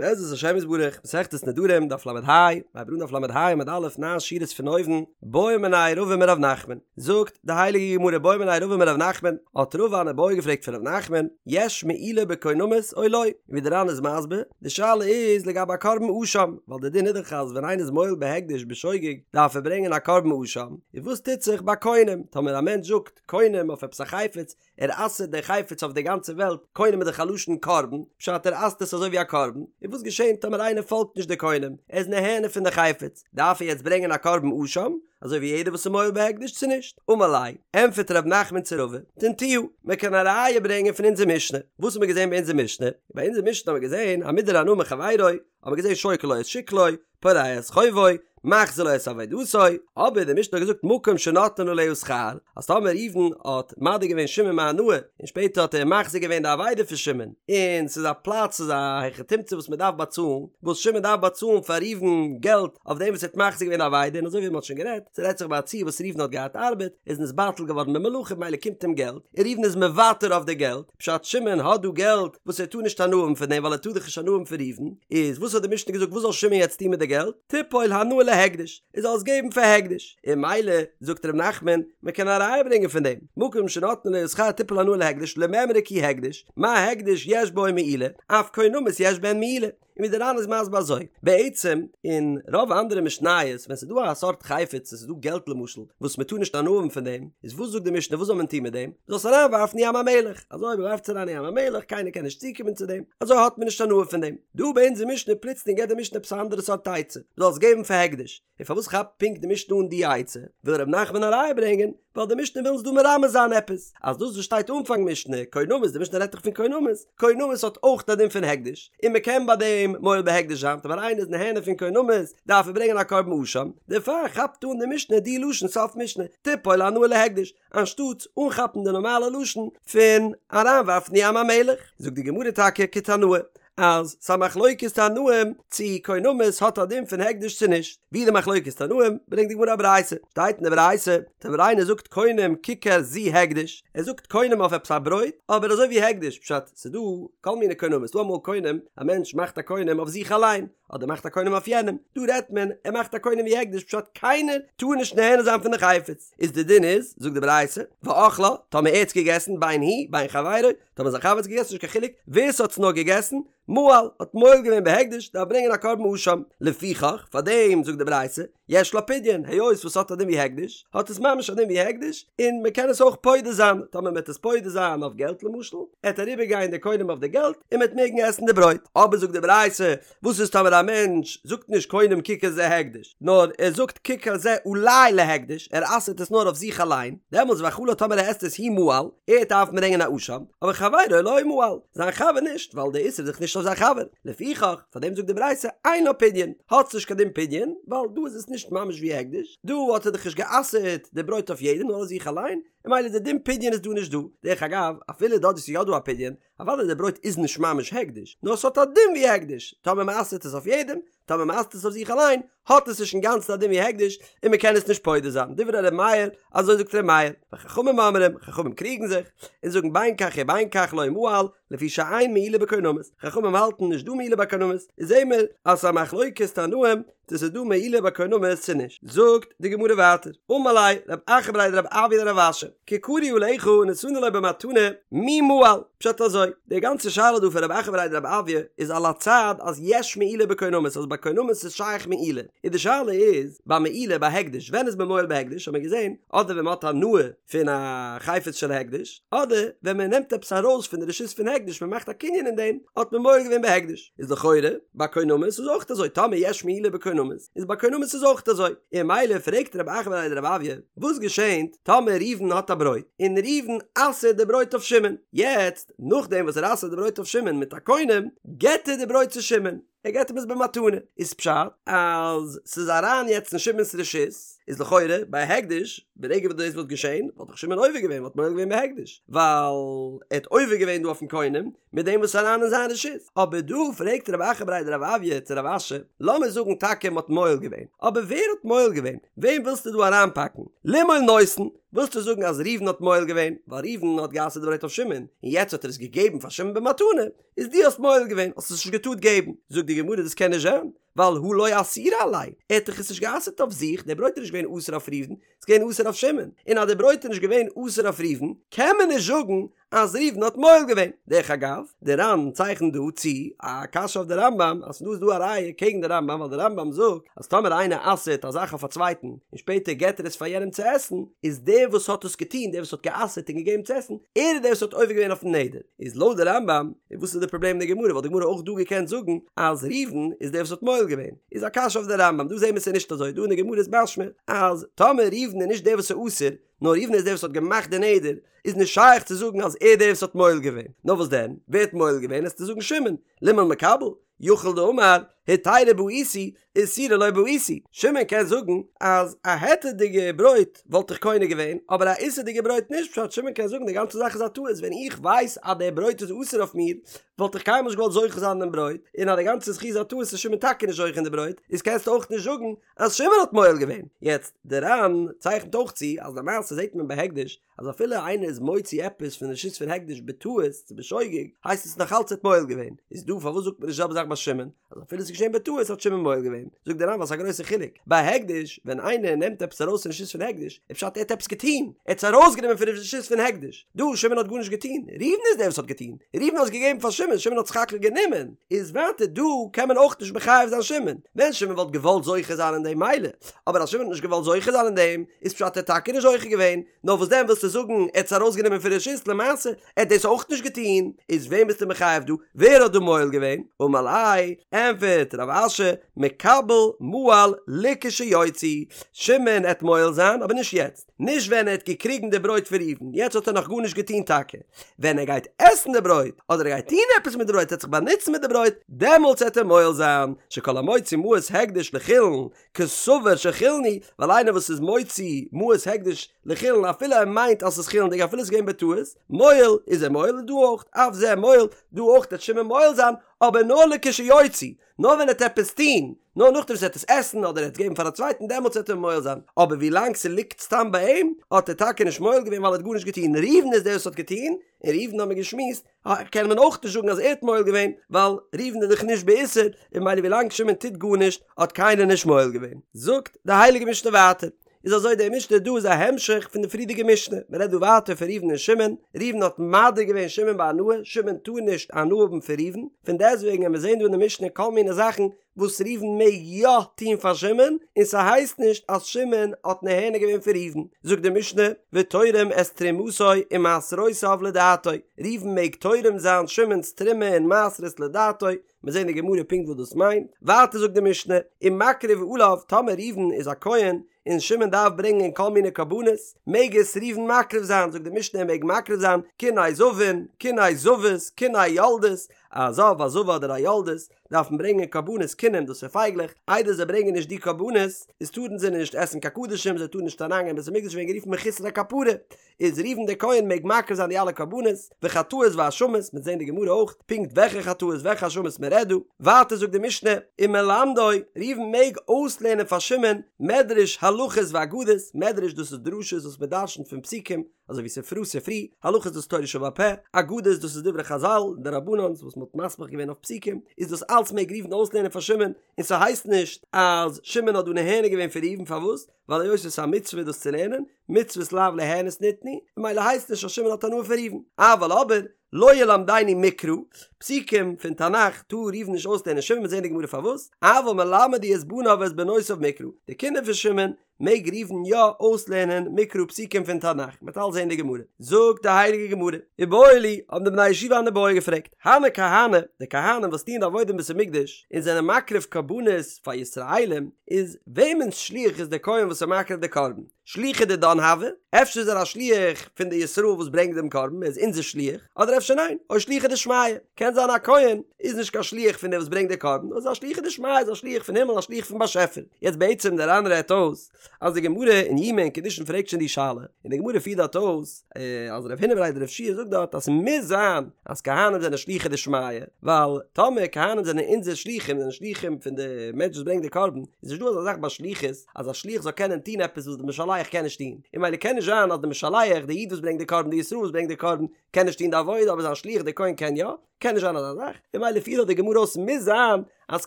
בעזרת השם יתברך, מסכת נדרים, דף ל"ה, מ'הייבט אן דף ל"ה עמוד א', ניין שורות פון אויבן, בעא מיניה רבא מרב נחמן, זאגט די הייליגע גמרא בעא מיניה רבא מרב נחמן, האט רבא אן איבעיא געפרעגט פון רב נחמן, יש מעילה בקונמות או לא? און ווי די ר"ן איז מסביר, די שאלה איז לגבי א קרבן אשם, ווייל די דין איז דאך אז ווען איינער איז מועל בהקדש בשוגג דארף ער ברענגען א קרבן אשם, און וואס טוט זיך ביי קונם, טאמער א מענטש זאגט קונם אויף עפעס א חפץ, ער אסר'ט די חפץ אויף די גאנצע וועלט, קונם איז דאך א לשון קרבן, פשט ער אסר'ט עס אזוי ווי א קרבן, און וואס געשענט טאמער איינער פאלגט נישט די קונם, ער איז נהנה פון די חפץ, דארף ער יעצט ברענגען א קרבן אשם, אזוי ווי יעדער וואס איז מועל בהקדש צו נישט? אמר ליה, ענטפערט ר' נחמן צו רבא, תניתוה, מען קען א ראיה ברענגען פון אונזער משנה, וואס האט מען געזען ביי אונזער משנה? ביי אונזער משנה האט מען געזען המודר הנאה מחבירו, האט מען געזען שוקל לו את שקלו, פורע את חובו, מחזיר לו את אבידתו, אבער די משנה האט געזאגט מקום שנותנין עליה שכר, אז טאמער ראובן האט מדיר געווען שמעון מהנאה, און שפעטער האט ער מחזיר געווען די אבידה פון שמעון, און ס'איז א פלאץ ס'איז א היכי תמצא וואס מ'דארף באצאלן, וואס שמעון דארף באצאלן פאר ראובן געלט אויף דעם וואס ער האט מחזיר געווען די אבידה, און אזוי ווי מ'האט שוין גערעדט, ס'רעדט זיך ביי א ציור וואס ראובן האט געהאט ארבעט, איז נתבטל געווארן במלאכה ממילא קומט אים געלט, און ראובן איז מוותר אויף די געלט, פשט שמעון האט דא געלט וואס ער טאר נישט הנאה האבן פון דעם ווייל ער טאר דאך נישט הנאה האבן פון ראובן, איז וואס האט די משנה געזאגט וואס זאל שמעון יעצט טון מיט די געלט? תיפול הנאה להקדש, ער זאל עס געבן פאר הקדש, און ממילא זאגט ר' נחמן מען קען א ראיה ברענגען פון דעם, מקום שנותנין עליה שכר תיפול הנאה להקדש למימרא כי הקדש, מה הקדש יש בו מעילה, אף קונמות יש בהן מעילה. און ווי דער ר"ן איז מסביר אזוי, בעצם אין רוב אנדערע משניות ווען ס'איז דא א סארט חפץ עס איז דא געלט למשל וואס מ'טאר נישט הנאה האבן פון דעם, איז וואס זאגט די משנה וואס זאל מען טון מיט דעם? מ'זאל עס אריינווארפן אין ים המלח, אזוי מ'ווארפט עס אריין אין ים המלח קיינער קען נישט צוקומען צו דעם, אזוי האט מען נישט הנאה פון דעם. דא ביי אונזער משנה פלוצלינג געבט די משנה עפעס א אנדערע סארט עצה, מ'זאל עס געבן פאר הקדש, און פארוואס כאפט פונקט די משנה אן די עצה? וויל ר' נחמן א ראיה ברענגען, ווייל די משנה וויל אונז דא מרמז זיין עפעס, אז דאס וואס שטייט אנפאנג משנה, קונמות, די משנה רעדט דאך פון קונמות, קונמות האט אויך א דין פון הקדש, און מען קען ביי דעם מועל בהקדש זיין, טאמער איינער איז נהנה פון קונמות, דארף ער ברענגען א קרבן אשם, דערפאר כאפט אן די משנה די לשון סוף משנה, תיפול הנאה להקדש, אנשטאטס אנכאפן די נארמאלע לשון פון אריינווארפן אין ים המלח. זאגט די גמרא טאקע כתנאי, אז ס'א מחלוקת תנאים צו קונמות האט א דין פון הקדש צו נישט, ווי די מחלוקת תנאים ברענגט די גמרא א ברייתא, שטייט אין די ברייתא, טאמער איינער זאגט קונם ככר זו הקדש, ער זאגט קונם אויף עפעס א ברויט, אבער אזוי ווי הקדש, פשט, ס'דא כל מיני קונמות, ס'דא אמאל קונם, א מענטש מאכט א קונם אויף זיך אליין, אדער מאכט א קונם אויף יענעם, דא רעדט מען ער מאכט א קונם ווי הקדש פשט קיינער טאר נישט נהנה זיין פון די חפץ, איז די דין איז, זאגט די ברייתא, ואכלה, טאמער ער האט עס געגעסן, בין הוא, בין חברו, טאמער זיין חבר האט עס געגעסן נישט קיין חילוק ווער ס'האט עס נאר געגעסן, מעל, האט מועל געווען בהקדש, דארף ברענגען א קרבן אשם, לפיכך, פאר דעם זאגט די ברייתא, יש לה פדיון, היות וואס ס'האט א דין ווי הקדש, האט עס ממש א דין ווי הקדש, און מ'קען עס אויך פודה זיין, טאמער מ'עט עס פודה זיין אויף געלט למשל, עט אריבער גיין די קונם אויף די געלט, און מ'עט מעגן עסן די ברויט. אבער זאגט די ברייתא, וואס איז טאמער א מענטש זאגט נישט קונם ככר זה הקדש, נאר ער זאגט ככר זה עלי להקדש, ער אסר'ט עס נאר אויף זיך אליין, דעמאלטס ואכלה טאמער ער עסט עס הוא מעל, ער דארף ברענגען א אשם, אבער חברו לא מעל, זיין חבר נישט, ווייל די איסור איז דאך נישט אויף זיין חבר, לפיכך, פאר דעם זאגט די ברייתא אין לה פדיון, האט נישט קיין דין פדיון, ווייל דא איז עס נישט ממש ווי הקדש, דא האט ער דאך נישט גע'אסר'ט די ברויט אויף יעדעם נאר אויף זיך אליין, און ממילא די דין פדיון איז דא נישט דא, דרך אגב, אפילו דארט וואו ס'איז יא דא א פדיון, אוודאי די ברויט איז נישט ממש הקדש, נאר ס'האט א דין ווי הקדש, טאמער מ'אסר'ט עס אויף יעדעם, טאמער מ'אסר'ט עס אויף זיך אליין, האט עס נישט אינגאנצן א דין ווי הקדש, און מ'קען עס נישט פודה זיין, דברי ר' מאיר, אזוי זאגט ר' מאיר, וחכמים אומרים, חכמים קריגן זיך, און זאגן בין כך ובין כך לא מעל, לפי שאין מעילה בקונמות, חכמים האלטן נישט דא מעילה בקונמות, איז זעהן מיר אז ס'איז א מחלוקת תנאים צו ס'איז דא מעילה בקונמות צו נישט. זאגט די גמרא ווייטער, אמר ליה רב אחא בריה דרב אויא לרב אשי, ככרו עליך ונתנו לו במתנה, מי מעל? פשט אזוי, די גאנצע שאלה דא פון רב אחא בריה דרב אויא איז על הצד אז יש מעילה בקונמות אז ביי קונמות איז שייך מעילה, און די שאלה איז ביי מעילה ביי הקדש ווען איז מען מועל בהקדש האט מען געזען אדער ווען מ'האט הנאה פון א חפץ של הקדש, אדער ווען מען נעמט עפעס ארויס פון די רשות פון הקדש מען מאכט א קנין אין דעם, האט מען מועל געווען בהקדש. איז לכאורה ביי קונמות איז אויך אזוי, טאמער יש מעילה בקונמות, איז ביי קונמות איז אויך אזוי. און ממילא פרעגט רב אחא בריה דרב אויא, וואס געשענט טאמער ראובן האט א ברויט, און ראובן אסר'ט די ברויט אויף שמעון, יעצט נאכדעם וואס ער אסר'ט די ברויט אויף שמעון מיט א קונם, געט ער די ברויט צו שמעון, ער געט אים עס במתנה, איז פשט אז ס'איז אריין יעצט אין שמעון'ס רשות, איז לכאורה ביי הקדש, ברגע וואס דאס וואלט געשען, וואלט דאך שמעון עובר געווען, וואלט מועל געווען בהקדש, ווייל ער האט עובר געווען דא אויפן קונם, מיט דעם וואס איז אריין אין זיין רשות. אבער דא פרעגט רב אחא בריה דרב אויא צו רב אשי, לאמיר זאגן טאקע מ'האט מועל געווען, אבער ווער האט מועל געווען? וועם ווילסטו דא אריינפאקן? לימעול נותן? ווילסטו זאגן אז ראובן האט מועל געווען, ווייל ראובן האט גע'אסר'ט די ברויט אויף שמעון, און יעצט האט ער עס געגעבן פאר שמעון במתנה, איז דו האסט מועל געווען, האסט עס נישט געטארט געבן. זאגט די גמרא דאס קען נישט זיין, ווייל הא לא אסירא עליה, ער האט דאך עס נישט גע'אסר'ט אויף זיך, דער ברויט איז נישט געווען אסור אויף ראובן, ס'איז געווען אסור אויף שמעון, און אז דער ברויט איז נישט געווען אסור אויף ראובן, קען מען נישט זאגן אז ראובן האט מועל געווען. דרך אגב, די ר"ן צייכנט דא צו א קשיא אויף די רמב"ם, אז פון דא איז דא א ראיה קעגן די רמב"ם, ווייל די רמב"ם זאגט אז טאמער איינער אסר'ט א זאך אויף א צווייטן, און שפעטער געט ער עס פאר יענעם צו עסן, איז דער וואס האט עס געטון, דער וואס האט גע'אסר'ט און געגעבן צו עסן, ער איז דער וואס האט עובר געווען אויפן נדר. איז לויט די רמב"ם, איז וואס איז די פראבלעם אין די גמרא, וואלט די גמרא אויך דא געקענט זאגן אז ראובן איז דער וואס האט מועל געווען. איז א קשיא אויף די רמב"ם, דא זעהן מיר ס'איז נישט אזוי, דא אין די גמרא איז משמע אז טאמער ראובן איז נישט דער וואס איז אסור, נאר ראובן איז דער וואס האט געמאכט די נדר, איז נישט שייך צו זאגן אז ער איז דער וואס האט מועל געווען, נאר וואס דען, ווער האט מועל געווען, וועסטו זאגן שמעון, לימעול מקבל, יכול דאמר, היתירא בעיתי, איסורא לא בעיתי, שמעון קען זאגן אז א היתר'דיגע ברויט וואלט איך קונה געווען, אבער א איסור'דיגע ברויט נישט, פשט שמעון קען זאגן די גאנצע זאך איז א טעות, ווען איך ווייס אז דער ברויט איז אסור אויף מיר, וואלט איך קיינמאל נישט געוואלט זוכה זיין אין דעם ברויט, און אז די גאנצע זכי' איז א טעות איז שמעון טאקע נישט זוכה אין די ברויט, איז קענסטו אויך נישט זאגן אז שמעון האט מועל געווען. יעצט, די ר"ן צייכנט אויך צו אז למעשה זעט מען ביי הקדש אז אפילו איינער איז מוציא עפעס פון רשות פון הקדש בטעות צו בשוגג, הייסט עס נאך אלץ ער האט מועל געווען, איז דא פארוואס זאגט מען נישט די זעלבע זאך ביי שמעון, אז אפילו עס איז געשען בטעות האט שמעון מועל געווען, זאגט די ר"ן ווייל ס'איז א גרויסע חילוק, ביי הקדש ווען איינער נעמט עפעס ארויס פון רשות פון הקדש, איז פשט ער האט עפעס געטון, ער האט עס ארויסגענומען פון רשות פון הקדש, דא שמעון האט גארנישט געטון, ראובן איז דער וואס האט געטון, ראובן האט עס געגעבן פאר שמעון, שמעון האט סך הכל גענומען, איז ווייטער דא קען מען אויך נישט מחייב זיין שמעון, ווען שמעון וואלט געוואלט זוכה זיין אין דעם מילא, אבער אז שמעון האט נישט געוואלט זוכה זיין אין דעם, איז פשט ער האט טאקע נישט זוכה געווען, נאר וואס דען ווילסטו זאגן ער האט עס ארויסגענומען פון רשות למעשה, ער האט דאס אויך נישט געטון, איז וועם ביסטו מחייב דא? ווער האט דא מועל געווען? אמר ליה, ענפערט רב אשי, מקבל מעל לכשיוציא, שמעון עט מועל זיין אבער נישט יעצט, נישט ווען ער האט געקריגן די ברויט פון ראובן, יעצט האט ער נאך גארנישט געטון טאקע, ווען ער גייט עסן די ברויט, אדער ער גייט טון עפעס מיט די ברויט, ער עט זיך באנוצן מיט די ברויט, דעמאלטס עט ער מועל זיין, שכל המוציא מעות הקדש לחולין, כסבור שחולין הוא, ווייל איינער וואס איז מוציא מעות הקדש לחולין אפילו ער מיינט אז ס'איז חולין'דיג אפילו ס'איז געווען בטעות, מועל, איז ער מועל און דא אויך, אף זה מועל, דא אויך וועט שמעון מועל זיין, אבער נאר לכשיוציא, נאר ווען ער וועט עפעס טון, נאר נאכדעם וואס ער וועט עס עסן אדער ער וועט עס געבן פאר א צווייטן דעמאלטס וועט ער מועל זיין, אבער ווי לאנג ס'ליגט סתם ביי אים, האט ער טאקע נישט מועל געווען ווייל ער האט גארנישט געטון, ראובן איז דער וואס האט געטון, און ראובן האמיר געשמועסט, קען מען אויך נישט זאגן אז ער האט מועל געווען, ווייל ראובן איז דאך נישט באיסור, און ממילא ווילאנג שמעון טוט גארנישט האט קיינער נישט מועל געווען. זאגט די הייליגע משנה ווייטער, איז אזוי די משנה דא איז א המשך פון די פריערדיגע משנה, מען רעדט דא ווייטער פון ראובן און שמעון, ראובן האט מדיר געווען שמעון בהנאה, שמעון טאר נישט הנאה האבן פון ראובן, פון דעסטוועגן וועלן מיר זען דא אין די משנה כל מיני זאכן וואס ראובן מעג יא טון פאר שמעון, און ס'הייסט נישט אז שמעון האט נהנה געווען פון ראובן, זאגט די משנה, ותורם את תרומתו ומעשרותיו לדעתו, ראובן מעג תורם זיין שמעון'ס תרומה און מעשרות לדעתו, מיר זעהן אין גמרא פונקט וואס דאס מיינט, ווייטער זאגט די משנה, ומקריב עליו, טאמער ראובן איז א כהן, און שמעון דארף ברענגען כל מיני קרבנות, מעג עס ראובן מקריב זיין, זאגט די משנה ער מעג מקריב זיין, קיני זבין, קיני זבות, קיני יולדות, א זב, א זבה אדער א יולדת, דארפן ברענגען קרבנות קינים דאס איז פייגלעך, איידער זיי ברענגען נישט די קרבנות, איז טארן זיי נישט עסן קיין קדשים, זיי טארן נישט אריינגיין אין בית המקדש ווערן גערופן מחוסרי כפרה, איז ראובן דער כהן מעג מקריב זיין די אלע קרבנות, וחטאות ואשמות, מ'עט זען די גמרא אויך, פונקט וועלכע חטאות וועלכע אשמות מען רעדט דא, ווייטער זאגט די משנה, ומלמדו, ראובן מעג אויסלערנען פאר שמעון, מדרש הלכות ואגדות, מדרש דאס איז דרשות וואס מען דרשנ'ט פון פסוקים, אזוי ווי ספרא ספרי, הלכות דאס איז תורה שבעל פה, אגדות דאס איז דברי חזל, דרבנן'ס וואס מ'האט מסמיך געווען אויף פסוקים, איז דאס אלץ מעג ראובן אויסלערנען פאר שמעון, און ס'הייסט נישט אז שמעון האט דא נהנה געווען פון ראובן, פארוואס? ווייל היות עס איז א מצוה דאס צו לערנען, מצוות לאו ליהנות ניתנו, ממילא הייסט נישט אז שמעון האט הנאה פון ראובן. אבל אבער, לא ילמדנו מקרא, פסוקים פון תנך טאר ראובן נישט אויסלערנען שמעון, מ'עט זען אין די גמרא פארוואס, אבל מלמד הוא את בניו ואת בנותיו מקרא, די קינדער פון שמעון מעג ראובן יא אויסלערנען מקרא פסוקים פון תנך, מ'וועט אלס זען די גמרא. זאגט די הייליגע גמרא, איבעיא להו, האבן די בני ישיבה אן איבעיא געפרעגט, הני כהני, די כהנים וואס טוען די עבודה אין בית המקדש, און זענען מקריב קרבנות פאר ישראלים, איז וועמענס שליח איז דער כהן וואס איז מקריב די קרבן? שליחא דידן הוי? אפשר איז ער א שליח פון די ישראל וואס ברענגט דעם קרבן, ער איז אונזער שליח, אדער אפשר ניין, או שליחא דשמיא, קען זיין א כהן איז נישט קיין שליח פון דער וואס ברענגט די קרבן, נאר איז א שליחא דשמיא, איז א שליח פון הימל, א שליח פון באשעפער. יעצט בעצם דער ר"ן רעדט אויס אז די גמרא אין יומא אין קידושין פרעגט שוין די שאלה, און די גמרא פירט דארט אויס אז רב הונא בריה דרב יהושע זאגט דארט אז ס'מוז זיין אז כהנים זענען שלוחי דשמיא, ווייל טאמער כהנים זענען אונזער שלוחים, זענען שלוחים פון די מענטש וואס ברענגט די קרבן, איז נישט דא אזא זאך ביי שליחות אז א שליח זאל קענען טון עפעס וואס די משלח משלח קען נישט טון, און ממילא קען נישט זיין אז די משלח, די איד וואס ברענגט די קרבן, די ישראל וואס ברענגט די קרבן, קען נישט טון די עבודה אבער זיין שליח די כהן קען יא, קען נישט זיין אזא זאך, און ממילא פירט דאך די גמרא אויס מוז זיין אז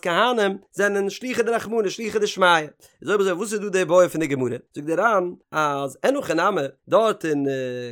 כהנים זענען שלוחי דרחמנא שלוחי דשמיא, איז אויב אזוי וואס איז דא די בעיא פון די גמרא? זאגט די ר"ן אז אין הכי נמי דארט אין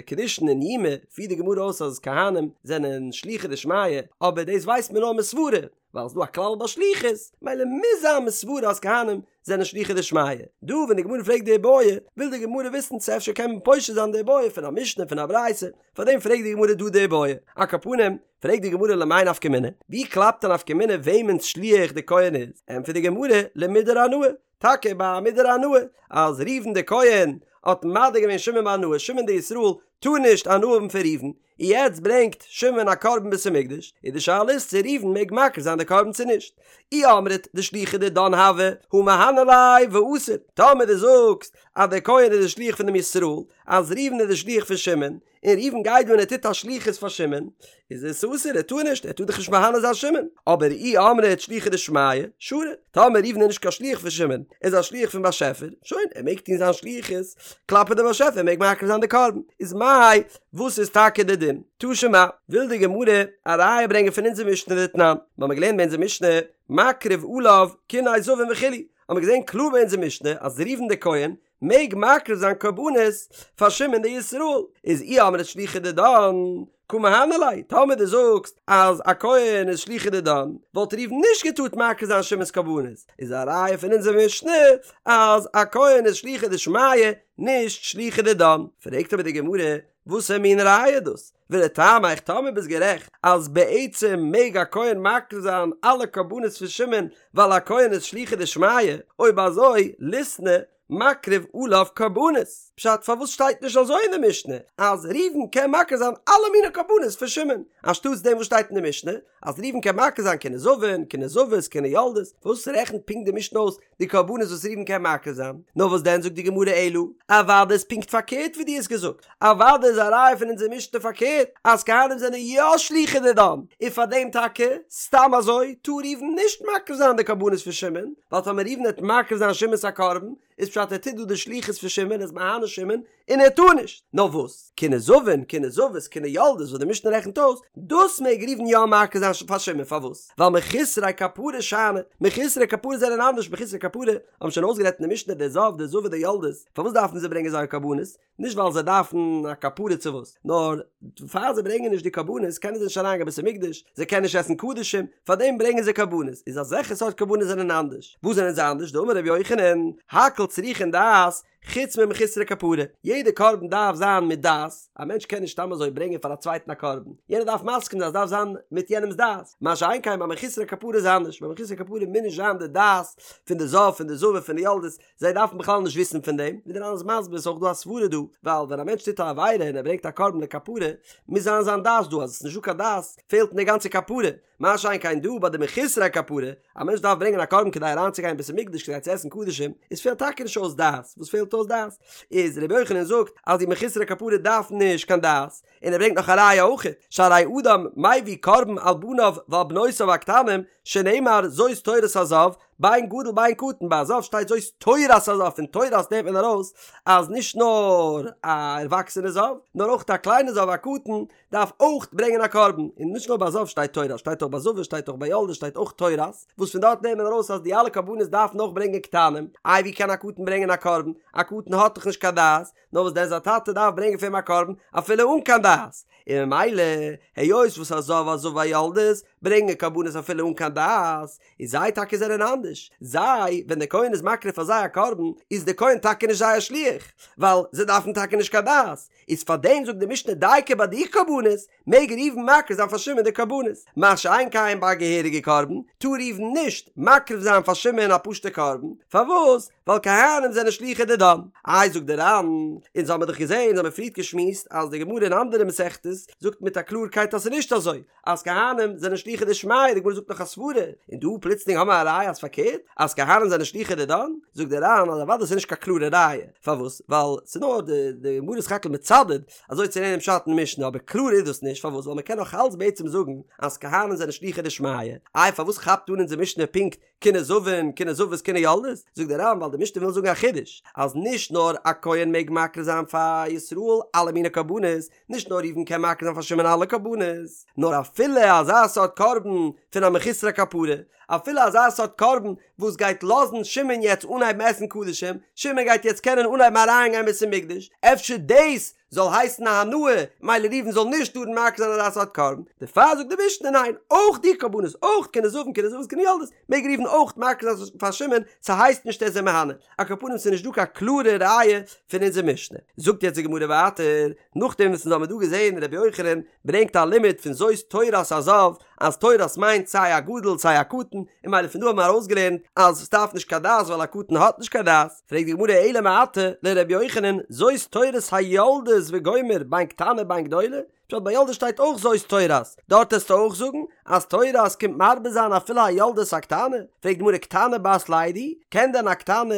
קידושין אין יומא פירט די גמרא אויס אז כהנים זענען שלוחי דשמיא, אבער דאס ווייסט מען נאר מסברה, ווייל ס'דא א כלל ביי שליחות, ממילא מוז זיין מסברה אז כהנים זענען שלוחי דשמיא. דא ווען די גמרא פרעגט די בעיא, וויל די גמרא וויסן צו אפשר קען מען פושט זיין די בעיא פון א משנה פון א ברייתא, פארדעם פרעגט די גמרא דא די בעיא. על כל פנים, פרעגט די גמרא למאי נפקא מינה, ווי קלאפט א נפקא מינה וועמענס שליח די כהן איז? ענטפערט די גמרא, למודר הנאה, טאקע ביי א מודר הנאה, אז ראובן די כהן האט מדיר געווען שמעון בהנאה, שמעון די ישראל טאר נישט הנאה האבן פון ראובן, און יעצט ברענגט שמעון א קרבן בית המקדש, איז די שאלה איז צו ראובן מעג מקריב זיין די קרבן צו נישט. אי אמרת דשליחא דידן הוי הא מהני ליה ואסיר, טאמער דו זאגסט אז דער כהן איז די שליח פון דעם ישראל, אז ראובן איז די שליח פון שמעון, און ראובן גייט דא און ער טוט א שליחות פאר שמעון, איז עס אסור, ער טאר נישט, ער טאר דאך נישט מהנה זיין שמעון, אבער אי אמרת שליחא דשמיא, שרי, טאמער ראובן איז נישט קיין שליח פון שמעון, ער איז א שליח פון באשעפער, שוין, ער מעג טון זיין שליחות כלפי די באשעפער, ער מעג מקריב זיין די קרבן, איז מאי, וואס איז טאקע די דין? תא שמע, וויל די גמרא א ראיה ברענגען פון אונזער משנה דתנן, מיר האבן געלערנט ביי אונזער משנה, מקריב עליו קיני זבין וכו', האבן מיר געזען קלאר ביי אונזער משנה אז ראובן דער כהן מעג מקריב זיין קרבנות פאר שמעון דער ישראל, איז אי אמרת שליחא דידן קא מהני ליה, טאמער דו זאגסט אז א כהן איז שליחא דידן, וואלט ראובן נישט געטארט מקריב זיין שמעון'ס קרבנות, איז א ראיה פון אונזער משנה אז א כהן איז שליחא דשמיא נישט שליחא דידן. פרעגט אבער די גמרא, וואסער מין ראיה איז דאס? ולטעמיך טאמער ביסט גערעכט אז בעצם מעג א כהן מקריב זיין אלע קרבנות פון שמעון ווייל א כהן איז שליחא דשמיא, אויב אזוי ליתני מקריב עליו קרבנות, פשט פארוואס שטייט נישט אזוי אין די משנה אז ראובן קען מקריב זיין אלע מיני קרבנות פון שמעון, אנשטאטס דעם וואס שטייט אין די משנה אז ראובן קען מקריב זיין קיני זבין, קיני זבות, קיני יולדות, פארוואס רעכנט פונקט די משנה אויס די קרבנות וואס ראובן קען מקריב זיין? נאר וואס דען זאגט די גמרא אלא, אוודאי איז פונקט פארקערט ווי דו האסט געזאגט, אוודאי איז א ראיה פון אונזער משנה פארקערט אז כהנים זענען יא שלוחי דידן, און פאר דעם טאקע, סתם אזוי, טאר ראובן נישט מקריב זיין די קרבנות פון שמעון, ווייל טאמער ראובן וועט מקריב זיין שמעון'ס א קרבן, איז פשט ער טוט דא די שליחות פון שמעון, ער איז מהנה שמעון, און ער טאר נישט. נאר וואס? קיני זבין, קיני זבות, קיני יולדות וואס די משנה רעכנט אויס, דאס מעג ראובן יא מקריב זיין פאר שמעון, פארוואס? ווייל מחוסרי כפרה שאני, מחוסרי כפרה זענען אנדערש, מחוסרי כפרה האבן שוין אויסגערעדט אין די משנה די זב, די זבה, די יולדות, פארוואס דארפן זיי ברענגען זייער קרבנות? נישט ווייל זיי דארפן א כפרה צו וואס, נאר פאר זיי ברענגען נישט די קרבנות קענען זיי נישט אריין גיין בית המקדש, זיי קענען נישט עסן קדשים, פארדעם ברענגען זיי קרבנות, איז אזעלכע סארט קרבנות זענען אנדערש. וואס זענען זיי אנדערש? דאמר רבי יוחנן, הכל צריכין דעת, חוץ ממחוסרי כפרה, יעדע קרבן דארף זיין מיט דעת, א מענטש קען נישט סתם אזוי ברענגען פאר א צווייטן א קרבן, יענער דארף מסכים זיין, עס דארף זיין מיט יענעמ'ס דעת, מה שאין כן ביי מחוסרי כפרה איז אנדערש, ביי מחוסרי כפרה מוז נישט זיין די דעת פון די זב פון די זבה פון די יולדות, זיי דארפן בכלל נישט וויסן פון דעם, ווי דער ר"ן איז מסביר איז אויך דא א סברה דא, ווייל ווען א מענטש טוט א עבירה און ער ברענגט א קרבן לכפרה, מוז זיין זיין דעת דא, אז עס איז נישטא קיין דעת פעלט אין די גאנצע כפרה, מה שאין כן דא ביי די מחוסרי כפרה, א מענטש דארף ברענגען א קרבן כדי אריינצוגיין אין בית המקדש כדי צו עסן קדשים, איז פעלט טאקע נישט אויס דעת, וואס פעלט אויס דעת? איז רבי יוחנן זאגט אז די מחוסרי כפרה דארפן נישט קיין דעת, און ער ברענגט נאך א ראיה אויכעט, שהרי אדם מביא קרבן על בניו ועל בנותיו הקטנים, שנאמר זאת תורת הזב, בין גדול בין קטן, ביי א זב שטייט זאת תורת הזב, פון תורת נעמט מען ארויס אז נישט נאר א ערוואקסענע זב, נאר אויך א קליינע זב א קטן דארף אויך ברענגען א קרבן, און נישט נאר ביי זב שטייט תורת, שטייט אויך ביי זבה, שטייט אויך ביי יולדת שטייט אויך תורת, וואס פון דארט נעמט מען ארויס אז די אלע קרבנות דארפן אויך ברענגען קטנים, איי ווי קען א קטן ברענגען א קרבן, א קטן האט דאך נישט קיין דעת, נאר וואס דען זיין טאטע דארף ברענגען פאר אים א קרבן אפילו אן קיין דעת, און ממילא היות וואס א זב א זבה א יולדת ברענגען קרבנות אפילו אן קיין דעת, איז זיי טאקע זענען אנדערש, זיי ווען דער כהן איז מקריב פאר זיי א קרבן איז דער כהן טאקע נישט זייער שליח, ווייל זיי דארפן טאקע נישט קיין דעת, איז פאר דעם זאגט די משנה דייקא ביי די קרבנות מעג ראובן מקריב זיין פאר שמעון די קרבנות, מה שאין כן ביי א געהעריגע קרבן טאר ראובן נישט מקריב זיין פאר שמעון א פשוטע קרבן, פארוואס? ווייל כהנים זענען שלוחי דידן. איי זאגט די ר"ן, אונז האמיר דאך געזען, אונז האמיר פריערט געשמועסט אז די גמרא אין אנדערע מסכתות זאגט מיט א קלארקייט אז ס'איז נישט אזוי, אז כהנים זענען שלוחי דשמיא, די גמרא זאגט נאך א סברה, און דא פלוצלינג האמיר א ראיה אז פארקערט, אז כהנים זענען שלוחי דידן, זאגט די ר"ן אז אוודאי ס'איז נישט קיין קלארע ראיה, פארוואס? ווייל ס'איז נאר די די גמרא איז סך הכל מצדד אזוי צו לערנען פשט אין משנה, אבער קלאר איז דאס נישט, פארוואס? ווייל מ'קען נאך אלץ בעצם זאגן אז כהנים זענען שלוחי דשמיא, איי פארוואס כאפט אן אונזער משנה פונקט? קיני זבין, קיני זבות, קיני יולדות? זאגט דער ר"ן ווייל די משנה וויל זאגן א חידוש, אז נישט נאר א כהן מעג מקריב זיין פאר ישראל אלע מיני קרבנות, נישט נאר ראובן קען מקריב זיין פאר שמעון אלע קרבנות, נאר אפילו אזא סארט קרבן פון א מחוסר כפרה, אפילו אזא סארט קרבן וואס גייט לאזן שמעון יעצט אנהייבן עסן קדשים, שמעון גייט יעצט קענען אנהייבן אריינגיין בית המקדש, אפשר דאס זאל הייסן א הנאה, מילא ראובן זאל נישט טארן מקריב זיין אזא סארט קרבן, דערפאר זאגט די משנה ניין, אויך די קרבנות, אויך קיני זבין קיני זבות קיני יולדות, מעג ראובן אויך מקריב זיין פאר שמעון, ס'הייסט נישט ער איז אים מהנה, על כל פנים ס'איז נישט דא קיין קלארע ראיה פון אונזער משנה. זאגט יעצט די גמרא ווייטער, נאכדעם וואס אונז האבן דא געזען רבי יוחנן ברענגט א לימוד פון זאת תורת הזב, אז תורת מיינט סיי א גדול סיי א קטן, און מילא פון דא האבן מיר ארויסגעלערנט אז ס'דארף נישט קיין דעת ווייל א קטן האט נישט קיין דעת, פרעגט די גמרא אלא מעתה לרבי יוחנן זאת תורת היולדות וגומר בין קטנה בין גדולה, פשט ביי יולדות שטייט אויך זאת תורת, דארט העסטו אויך זאגן אז תורת קומט מרבה זיין אפילו א יולדת א קטנה? פרעגט די גמרא קטנה בת לידה, קען דען א קטנה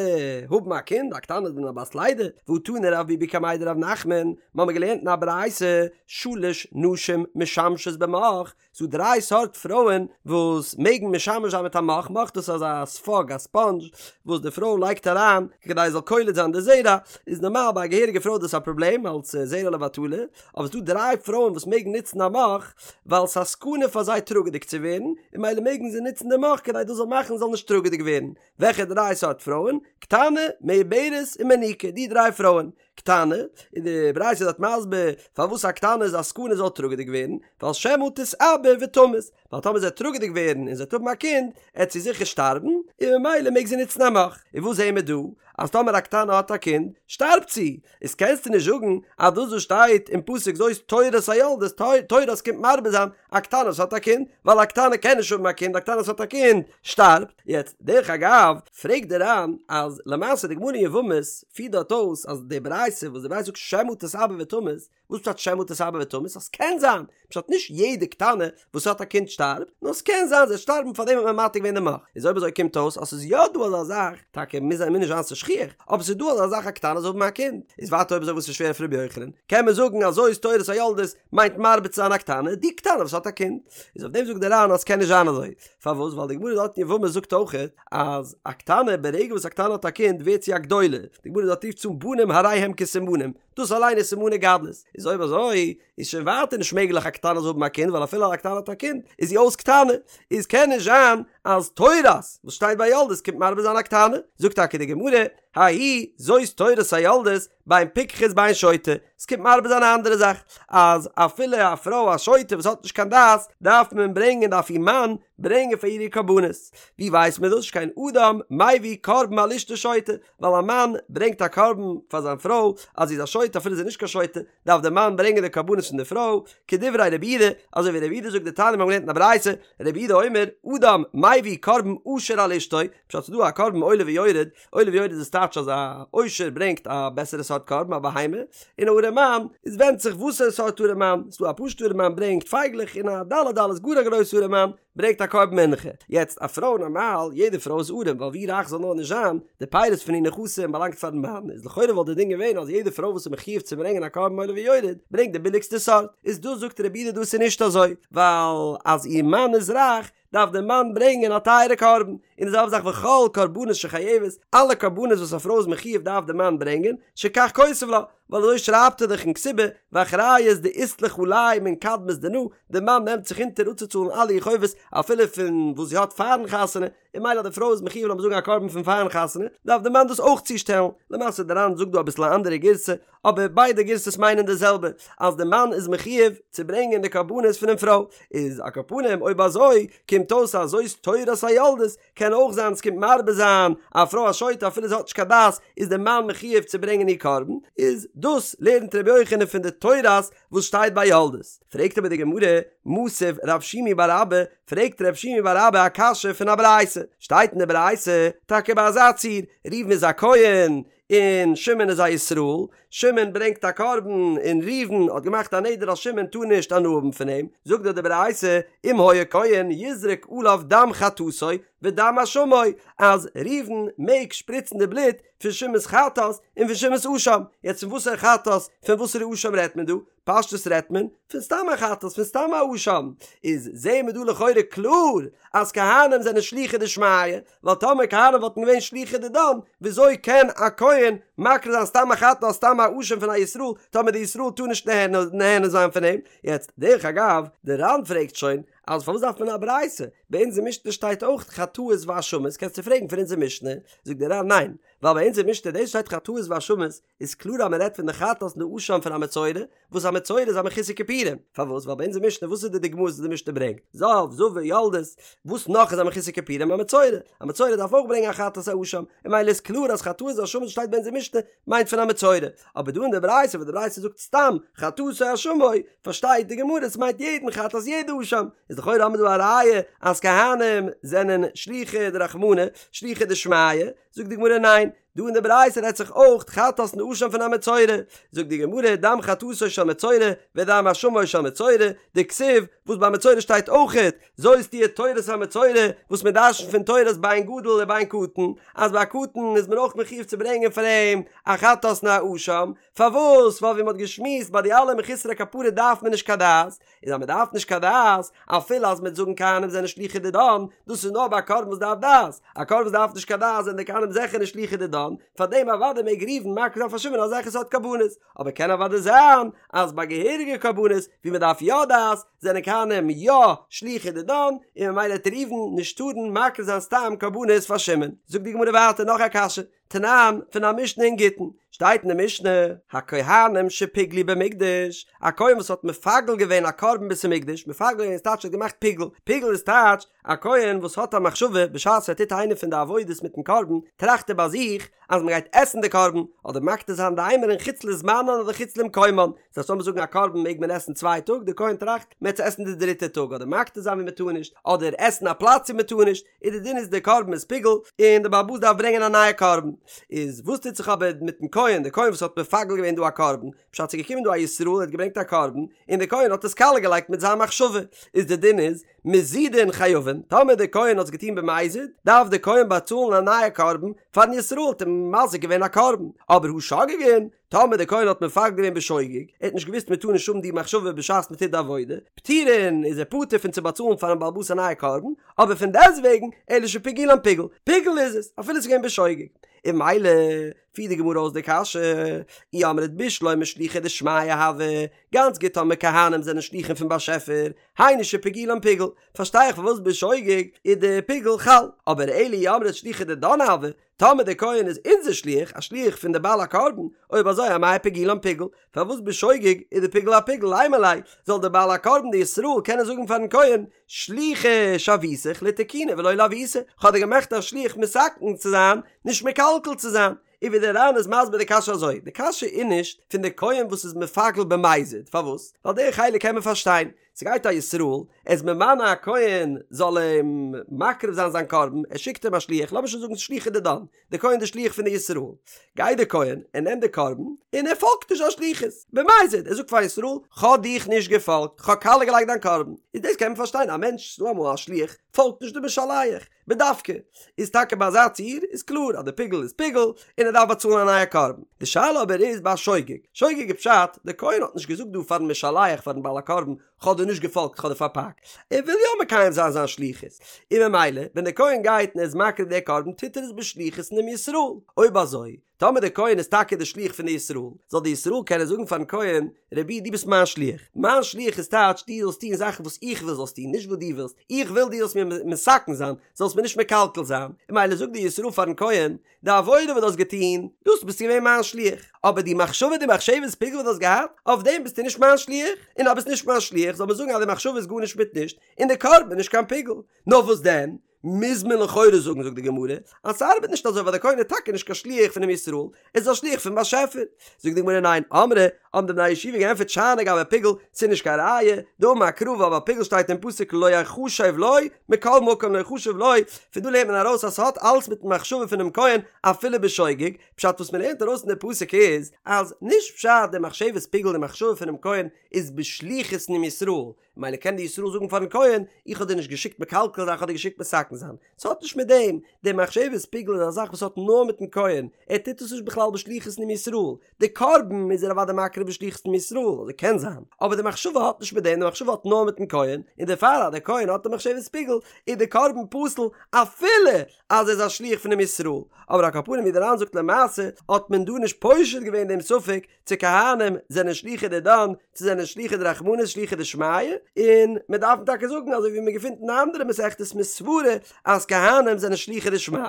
האבן א קינד? א קטנה איז דען א בת לידה? והא תני רב ביבי קמיה דרב נחמן, מ'האמיר געלערנט אין א ברייתא שלש נשים משמשות במוך, ס'דא דריי סארט פרויען וואס מעגן משמש זיין מיט א מוך, מוך דאס איז אזא ספאג א ספאנדזש וואס די פרוי לייגט אריין כדי עס זאל קולט זיין די זרע, איז נארמאל ביי א געהעריגע פרוי איז דאס א פראבלעם אלס זרע לבטלה, אבער ס'דא דריי פרויען וואס מעגן נוצן א מוך ווייל ס'איז א סכנה פאר זיי טראגעדיג צו ווערן, און מילא מעגן זיי נוצן די מוך כדי דאס זאל מאכן זיי זאלן נישט טראגעדיג ווערן. וועלכע דריי סארט פרויען? קטנה, מעוברת און מניקה, די דריי פרויען. קטנה, און די ברייתא איז דארט מסביר פארוואס א קטנה איז א סכנה זאל טראגעדיג ווערן, ווייל שמא תתעבר ותמות, ווייל טאמער זי וועט טראגעדיג ווערן און זי וועט האבן א קינד, עט זי זיכער שטארבן, און ממילא מעג זי נוצן א מוך. און וואס זעהן מיר דא? אז טאמער א קטנה האט א קינד, שטארבט זי! איז קענסטו נישט זאגן אז דאס וואס שטייט אין פסוק זאת תורת היולדות, תורת קומט מרבה זיין א קטנה וואס האט א קינד, ווייל א קטנה קען נישט האבן א קינד, א קטנה וואס האט א קינד שטארבט. יעצט, דרך אגב, פרעגט דער ר"ן אז למעשה די גמרא אין יבמות פירט דארט אויס אז די ברייתא וואס די ברייתא זאגט שמא תתעבר ותמות, וואס פשט שמא תתעבר ותמות? אז ס'קען זיין, פשט נישט יעדע קטנה וואס האט א קינד שטארבט, נאר ס'קען זיין זי וועט שטארבן פארדעם האט מען מתיר געווען די מוך, איז אויב אזוי קומט אויס אז ס'איז יא דא אזא זאך, טאקע מוז מוז נישט זיין ס'איז שכיח, אבער ס'איז דא אזא זאך א קטנה זאל האבן א קינד, איז ווייטער אויב אזוי וואס איז שווער אויף ר' יוחנן, קען מען זאגן אז זאת תורת היולדות מיינט מרבה צו זיין א קטנה, די קטנה וואס האט א קינד, איז אויף דעם זאגט דער ר"ן אז ס'קען נישט זיין אזוי, פארוואס ווייל די גמרא דארט אין יבמות זאגט אויכעט אז א קטנה ברגע וואס א קטנה האט א קינד ווערט זי א גדולה, די גמרא דארט רופט עס אן בנים הרי הם כסימנים, דאס אליין איז סימני גדלות, איז אויב אזוי איז שוין ווייטער נישט מעגליך א קטנה זאל האבן א קינד ווייל אפילו א קטנה האט א קינד איז זי אויס קטנה, איז קען נישט זיין אז תורת וואס שטייט ביי יולדות קומט מרבה זיין א קטנה, זאגט טאקע די גמרא, ההיא זאת תורת היולדות בין פיקחת בין שוטה, עס קומט מרבה זיין א אנדערע זאך, אז אפילו א פרוי א שוטה וואס האט נישט קיין דעת דארף מען ברענגען דארף איר מאן ברענגען פאר איר איר קרבנות, ווי ווייסט מען דאס שכן אדם מביא קרבן על אשתו שוטה, ווייל א מאן ברענגט א קרבן פאר זיין פרוי אז זי איז א שוטה אפילו זי איז נישט קיין שוטה, דארף דער מאן ברענגען די קרבנות פון די פרוי, כדברי רבי יהודה, אזוי ווי רבי יהודה זאגט דתניא מיר האבן געלערנט אין א ברייתא, רבי יהודה אומר, אדם מביא קרבן עשיר על אשתו, פשט ס'איז דא א קרבן עולה ויורד, עולה ויורד איז טייטש אז א עושר ברענגט א בעסערע סארט קרבן א בהמה, און א ארעמאן, עס ווענדט זיך וואסערע סארט ארעמאן, ס'איז דא א פשוטע ארעמאן ברענגט פייגלעך און א דלי דלות גאר א גרויסע ארעמאן, ברענגט א קרבן מנחה. יעצט א פרוי נארמאל, יעדע פרוי איז ארעם, ווייל ווי רייך זאל נאר נישט זיין, די פירות פון איר נכסים באלאנגט פארן מאן, איז לכאורה וואלט די דין געווען אז יעדע פרוי וואס איז מחיוב צו ברענגען א קרבן עולה ויורד, ברענגט די ביליגסטע סארט. איז דא זאגט רבי יהודה דאס איז נישט אזוי, ווייל אז איר מאן איז רייך, דארף דער מאן ברענגען א טייערע קרבן, און די זעלבע זאך וכל קרבנות שחייבת, אלע קרבנות וואס א פרוי איז מחיוב דארף דער מאן ברענגען, שכך כותב לה, ווייל אזוי שרייבט ער דאך אין כתובה, ואחריות דאית לך עלי מן קדמת דנא, דער מאן נעמט זיך אונטער אפצוצאלן אלע איר חובות אפילו פון וואס זי האט פארן חתונה, און מילא אז די פרוי איז מחיוב לאמיר זאגן א קרבן פון פארן חתונה, דארף דער מאן דאס אויך צושטעלן, למעשה דער ר"ן זאגט דא אביסל א אנדערע גירסא, אבער ביידע גירסאות מיינען די זעלבע, אז די מאן איז מחיוב צו ברענגען די קרבנות פונעם פרוי, איז על כל פנים אויב אזוי קומט אויס אז זאת תורת היולדות קען אויך זיין ס'קומט מרבה זיין א פרוי א שוטה אפילו זי האט נישט קיין דעת איז די מאן מחיוב צו ברענגען איר קרבן, איז דאס לערנט רבי יוחנן פון די תורת וואס שטייט ביי יולדות. פרעגט אבער די גמרא, מתיב רב שימי בר אבא, פרעגט רב שימי בר אבא א קשיא פון א ברייתא, שטייט אין די ברייתא טאקע ביי אזא ציור, ראובן איז א כהן, און שמעון איז א ישראל, שמעון ברענגט א קרבן און ראובן האט געמאכט א נדר אז שמעון טאר נישט הנאה האבן פון אים, זאגט דארט די ברייתא, אם היה כהן יזרוק עליו דם חטאתו ודם אשמו, אז ראובן מעג שפריצן די בלוט פון שמעון'ס חטאת און פון שמעון'ס אשם, יעצט פון וואסערע חטאת פון וואסערע אשם רעדט מען דא? פשטות רעדט מען פון סתם א חטאת פון סתם א אשם, איז זעהן מיר דא לכאורה קלאר אז כהנים זענען שלוחי דשמיא, ווייל טאמער כהנים וואלטן געווען שלוחי דידן, וויאזוי קען א כהן מקריב זיין סתם א חטאת סתם א אשם פון א ישראל, טאמער די ישראל טאר נישט נהנה זיין פון אים? יעצט, דרך אגב, די ר"ן פרעגט שוין, אז פארוואס דארף מען א ברייתא? ביי אונזער משנה שטייט אויך חטאות ואשמות, קענסטו פרעגן פון אונזער משנה? זאגט די ר"ן ניין, ווייל ביי אונזער משנה דאס שטייט חטאות ואשמות, איז קלאר אז מען רעדט פון די חטאת און די אשם פון א מצורע, וואס א מצורע איז א מחוסר כיפורים, פארוואס? ווייל ביי אונזער משנה וואס איז די דוגמאות וואס די משנה ברענגט? זב, זבה, יולדת, וואס נאך איז א מחוסר כיפורים? א מצורע, א מצורע דארף אויך ברענגען א חטאת א אשם, און ממילא איז קלאר אז חטאות ואשמות וואס שטייט ביי אונזער משנה מיינט פון א מצורע, אבער דא אין די ברייתא וואס די ברייתא זאגט סתם חטאתו אשמו, פארשטייט די גמרא עס מיינט יעדן חטאת יעדע אשם, איז לכאורה האבן מיר דא א ראיה אז כהנים זענען שלוחי דרחמנא, שלוחי דשמיא, זאגט די גמרא ניין, דא אין די ברייתא רעדט זיך אויך חטאת און אשם פון א מצורע, זאגט די גמרא דם חטאתו של מצורע ודם אשמו של מצורע, דכתיב וואס ביי מצורע שטייט אויכעט זאת תהיה תורת המצורע, וואס מען דרש'נט פון תורת בין גדול ובין קטן, אז ביי א קטן איז מען אויך מחיוב צו ברענגען פאר אים א חטאת און א אשם, פארוואס? ווייל ווי מען האט געשמועסט ביי די אלע מחוסרי כפרה דארף מען נישט קיין דעת, איז אז מען דארף נישט קיין דעת, אפילו אז מ'וועט זאגן כהנים זענען שלוחי דידן, דאס איז נאר ביי א קרבן וואס דארף דעת, א קרבן וואס דארף נישט קיין דעת זענען די כהנים זיכער נישט שלוחי דידן, פארדעם אוודאי מעג ראובן מקריב זיין פאר שמעון אזעלכע סארט קרבנות, אבער קען אוודאי זיין אז ביי געהעריגע קרבנות ווי מען דארף יא דעת, זענען כהנים יא שלוחי דידן, און ממילא וועט ראובן נישט טארן מקריב זיין סתם קרבנות פאר שמעון. זאגט די גמרא ווייטער נאך א קשיא, תנן, פון א משנה אין גיטין, שטייט אין די משנה, הכהנים שפיגלו במקדש, א כהן וואס האט מפגל געווען א קרבן בית המקדש, מפגל געווען איז טייטש ער האט געמאכט פיגול, פיגול איז טייטש א כהן וואס האט א מחשבה בשעת ער טוט איינע פון די עבודות מיטן קרבן, טראכט ער ביי זיך אז מען גייט עסן די קרבן, אדער מקטיר זיין די אימורין חוץ לזמנן אדער חוץ למקומן, דאס הייסט לאמיר זאגן א קרבן מעג מען עסן צוויי טאג, די כהן טראכט מען וועט עס עסן די דריטע טאג, אדער מקטיר זיין ווי מען טאר נישט, אדער עסן א פלאץ ווי מען טאר נישט, איז די דין איז די קרבן איז פיגול און די בעל הבית דארף ברענגען א נייע קרבן, איז וואס טוט זיך אבער מיטן כהן, די כהן וואס האט מפגל געווען דא א קרבן, פשט ס'איז געקומען דא א ישראל ער האט געברענגט א קרבן און די כהן האט עס קאליע געלייגט מיט זיין מחשבה, איז די דין איז מזידין חייבין, טאמער די כהן האט עס געטון במזיד, דארף די כהן באצאלן א נייע קרבן פארן ישראל האט אים מזיק געווען א קרבן, אבער הא שוגגין, טאמער דער כהן האט מפגל געווען בשוגג, ער האט נישט געוואוסט מען טאר נישט האבן די מחשבה בשעת מען טוט די עבודה, פטורין איז ער פטור פון צו באצאלן פארן בעל הבית א נייע קרבן, אבער פון דעסטוועגן, אלא שפיגולן פיגול, פיגול איז עס, אפילו עס איז געווען בשוגג. און ממילא פירט די גמרא אויס די קשיא, אי אמרת בשלמא שלוחי דשמיא הוו, גאנץ גוט טאמער כהנים זענען שלוחים פון באשעפער, היינו שפיגולן פיגול, פארשטיי איך פארוואס בשוגג איז די פיגול חל, אבער אלא אי אמרת שלוחי דידן הוו, טאמער דער כהן איז אונזער שליח, א שליח פון די בעל הקרבן, אויב אזוי אמאי פיגולן פיגול, פארוואס בשוגג איז די פיגול א פיגול, לימא ליה, זאל דער בעל הקרבן די ישראל קענען זאגן פארן כהן, שליחא שויתיך לתקוני ולא לעוותי, כ'האב דיר געמאכט א שליח מתקן צו זיין, נישט מקלקל צו זיין. און ווי דער ר"ן איז מסביר די קשיא אזוי, די קשיא איז נישט פון די כהן וואס איז מפגל במזיד, פארוואס? ווייל די חלק קען מען פארשטיין, ס'גייט א ישראל, ער איז ממנה א כהן זאל אים מקריב זיין זיין קרבן, ער שיקט אים א שליח, לאמיר שוין זאגן שלוחא דידן, די כהן די שליח פון די ישראל, גייט די כהן, ער נעמט די קרבן, און ער פאלגט נישט זיין שליחות, במזיד, ער זאגט פאר ישראל, כ'האב דיך נישט געפאלגט, כ'האב קאליע געלייגט דיין קרבן, איז דאס קען מען פארשטיין, א מענטש, ס'דא אמאל א שליח, פאלגט נישט די משלח, בדווקא, איז טאקע ביי אזא ציור איז קלאר אז די פיגול איז פיגול און ער דארף באצאלן א נייע קרבן. די שאלה אבער איז ביי שוגג. שוגג איז פשט, די כהן האט נישט געזאגט דא פארן משלח פארן בעל הקרבן כ'האב דיר נישט געפאלגט כ'האב דיר פארפאקט. ער וויל יא מקיים זיין זיין שליחות. און ממילא ווען די כהן גייט און ער איז מקריב די קרבן טוט ער עס בשליחות פונעם ישראל. אויב אזוי טאמער דער כהן איז טאקע דער שליח פון די ישראל, זאל די ישראל קענען זאגן פארן כהן, רבי דו ביסט מיין שליח, מיין שליח איז טייטש דו זאלסט טון זאכן וואס איך וויל זאלסט טון, נישט וואס דו ווילסט, איך וויל דו זאלסט מיר מתקן זיין, זאלסט מיר נישט מקלקל זיין, און ממילא זאגט די ישראל פארן כהן, די עבודה וואס דו האסט געטון, דאס ביסטו געווען מיין שליח, אבער די מחשבה די מחשבת פיגול וואס דו האסט געהאט, אויף דעם ביסטו נישט מיין שליח, און אז ביסט נישט מיין שליח זאל מען זאגן אז די מחשבה איז גארנישט מיט נישט, און די קרבן איז נישט קיין פיגול. נאר וואס דען? מוז מען לכאורה זאגן זאגט די גמרא אז ס'ארבעט נישט אזוי ווייל דער כהן איז טאקע נישט קיין שליח פונעם ישראל, ער איז א שליח פון באשעפער. זאגט די גמרא ניין, אמרי, האבן די בני הישיבה געענטפערט שאני גבי פיגול, ס'איז נישט קיין ראיה, דאמר קרא ווייל ביי פיגול שטייט אין פסוק לא יחשב לו, מכל מקום לא יחשב לו, פון דא לערנט מען ארויס אז ס'האט אלס מיטן מחשבה פונעם כהן אפילו בשוגג, פשט וואס מ'לערנט ארויס פון די פסוק איז אז נישט פשט די מחשבת פיגול די מחשבה פונעם כהן איז בשליחות פונעם ישראל, ממילא קען די ישראל זאגן פארן כהן, איך האב דיר נישט געשיקט מקלקל זיין איך האב דיר געשיקט מתקן זיין. ס'האט נישט מיט דעם, די מחשבת פיגול איז א זאך וואס האט נאר מיטן כהן, ער טוט עס נישט בכלל בשליחות פונעם ישראל, די קרבן איז ער אוודאי מקריב בשליחות פונעם ישראל, אזוי קען זיין, אבער די מחשבה האט נישט מיט דעם, די מחשבה האט נאר מיטן כהן, און דערפאר אז דער כהן האט די מחשבת פיגול, איז די קרבן פסול אפילו אז ער איז א שליח פונעם ישראל, אבער על כל פנים ווי דער ר"ן זאגט למעשה האט מען דא נישט פושט געווען דעם ספק צו כהנים זענען שלוחי דידן צו זענען שלוחי דרחמנא שלוחי דשמיא, און מען דארף טאקע זאגן אזוי ווי מען געפינט אין אנדערע מסכתות מסברא אז כהנים זענען שלוחי דשמיא.